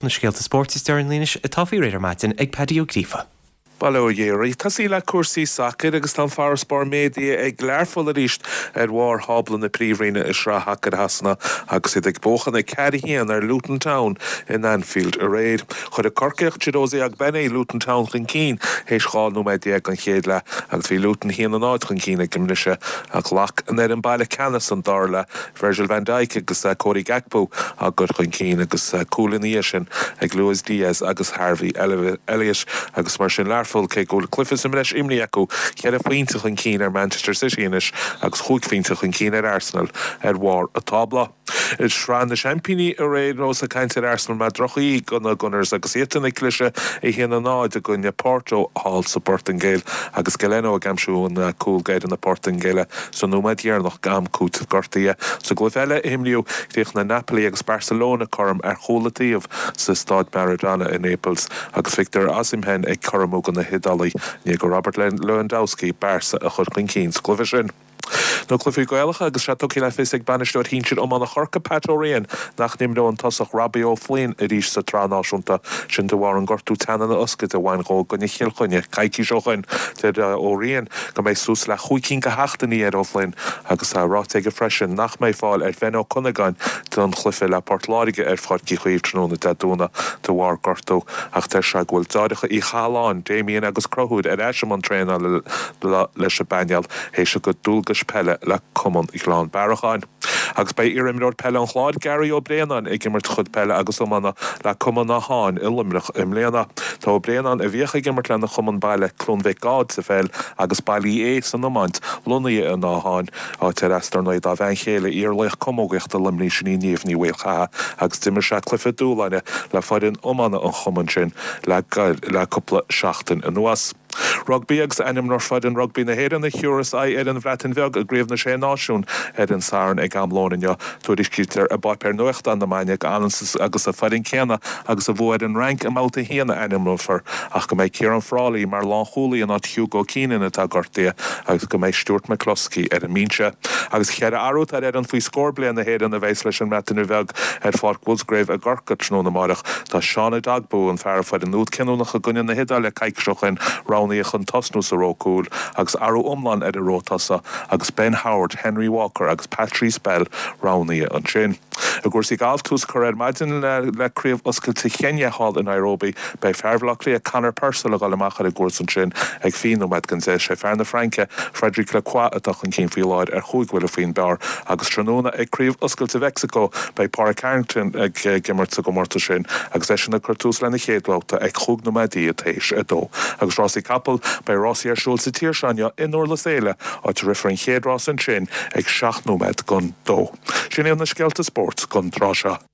Na scéalta spóirt is deireanaí anois atá faoi réir ar maidin ag Paddy Ó Gríofa. Bail ó Dhia oraibh. Tosaí le cúrsaí sacair agus tá an farasbarr méadaithe ag Learpholl arís ar bharr thábla na Príomhroinne i Sraith Shacair Shasana agus iad ag buachan 4-1 ar Luton Town in Anfield aréir. Chuir an Corcaíoch Chiedozie Ogbene Luton Town chun cinn théis 12 nóiméad den chéad leath agus bhí Luton 1-0 chun cinn ag an mbriseadh ach ghlac an fhoireann baile ceannas an dara leath Virgil van Dijk agus Cody Gakpo á gcur chun cinn agus cúil ina dhiaidh sin ag Luis Diaz agus Harvey Elliott agus mar sin Learpholl, cé go bhfuil cluiche sa mbreis imrithe acu, cheithre phointe chun cinn ar Manchester City anois agus chúig phointe chun cinn ar Arsenal ar bharr an tábla. I Sraith na Seaimpíní ar aon nós, ag caint ar Arsenal mar droch-dhíth do na Gunners agus iadsan ag cliseadh 1-0 i gcoinne Porto thall sa bPortaingéil agus Galeno ag aimsiú an cúl d'fhoireann na Portaingéile. Sa nóiméad dheireanach d'am cúitimh gortaithe sa gcluiche eile a imríodh, chríochnaigh Napoli agus Barcelona cothrom ar chúl an taobh sa Staid Maradona i Naples agus Victor Osimhen ag cothromú do na hIodálaigh i ndiaidh do Robert Lewandowski Barca a chur chun cinn sa gcluiche sin. Na cluichí Gaelacha agus sé tugtha le fios ag bainisteoir shinsir iomána Chorcaí, Pat O'Riain, nach n-imreoidh an tosach Robbie O'Flynn arís sa tSraith Náisiúnta, sin de bharr an gortú teannán na hioscaide a bhain dhó i gcoinne Chill Chainnigh coicís ó shoin. Deir O'Riain go mbeidh suas le chúig cinn de sheachtainí ar O'Flynn agus tá ráite aige freisin nach mbeidh fáil ar Bhen Ó Cuinneagáin don chluiche le Port Láirge ar Pháirc Uí Chaoimh tráthnóna Dé Domhnaigh de bharr gortú ach deir sé go bhfuil deartháireacha Uí Chathalláin, Damien agus Conchúr ar ais i mbun traenála leis an bpainéal théis a gcuid dualgais peile le Cumann Ghleann Bearacháin. Agus beidh iar-imreoir peile an Chláir, Gary Ó Braonáin, ag imirt a chuid peile agus iomána le Cumann Átháin i Luimneach i mbliana. Tá Ó Braonáin, a bhíodh ag imirt lena chumann baile Cluain Mhic Gáid sa pheil agus Baile Uí Aodha san iomáint, lonnaithe in Átháin, áit ar as dar ndóigh dá bhean chéile, iar-laoch camógaíochta Luimnigh, sin í Niamh Ní Mhaolchatha, agus d'imir sé cluiche dúshláin le foireann iomána an chumainn sin le cúpla seachtain anuas. Rugbaí agus ainmneofar foireann rugbaí na hÉireann a thiúrfas aghaidh ar an Bhreatain Bheag i gCraobh na Sé Náisiún ar an Satharn ag am lóin inniu. Tuairiscítear i bpáipéar nuachtáin na Maine go agus an foireann céanna agus a bhuaigh ar an Fhrainc i mBabhta 1 a ainmneofar ach go mbeidh Ciarán Frawley mar lánchúlaí in áit Hugo Keenan atá gortaithe agus go mbeidh Stuart McCloskey ar an mbinse. Agus cheithre athrú atá ar fhoireann faoi scór bliain na hÉireann a bheas leis an mBreatain Bheag ar Pháirc Mhusgrave i gCorcaigh tráthnóna amáireach. Tá Sean Edogbo, an fear a fuair an úd cinniúnach i gcoinne na hIodáile coicís ó shoin, roghnaithe chun tosnú sa ró cúil agus athrú iomlán ar an ró tosaigh agus Ben Howard, Henry Walker agus Patrice Bell roghnaithe ansin. I gcúrsaí gailf, tús curtha ar maidin le Craobh Oscailte Cheiniá thall i Nairobi. Beidh fear Bhaile Átha Cliath Conor Purcell ag dul amach ar an gcúrsa ansin ag 20 nóiméad don 10. Sé fear na Fraince, Frederic Lacroix atá chun cinn faoi láthair ar chúig bhuille faoin bpar agus tráthnóna ag Craobh Oscailte Mheicsiceo beidh Pádraig Harrington ag imirt sa gcomórtas sin agus eisean ag cur tús lena chéad bhabhta ag chúig nóiméadaí tar éis a dó. Agus rásaí capall, beidh rásaí ar siúl sa tír seo inniu i nDurlas Éile, áit a rithfear an chéad rás ansin ag 7 nóiméad don dó. Sin iad na scéalta spóirt don tráth seo.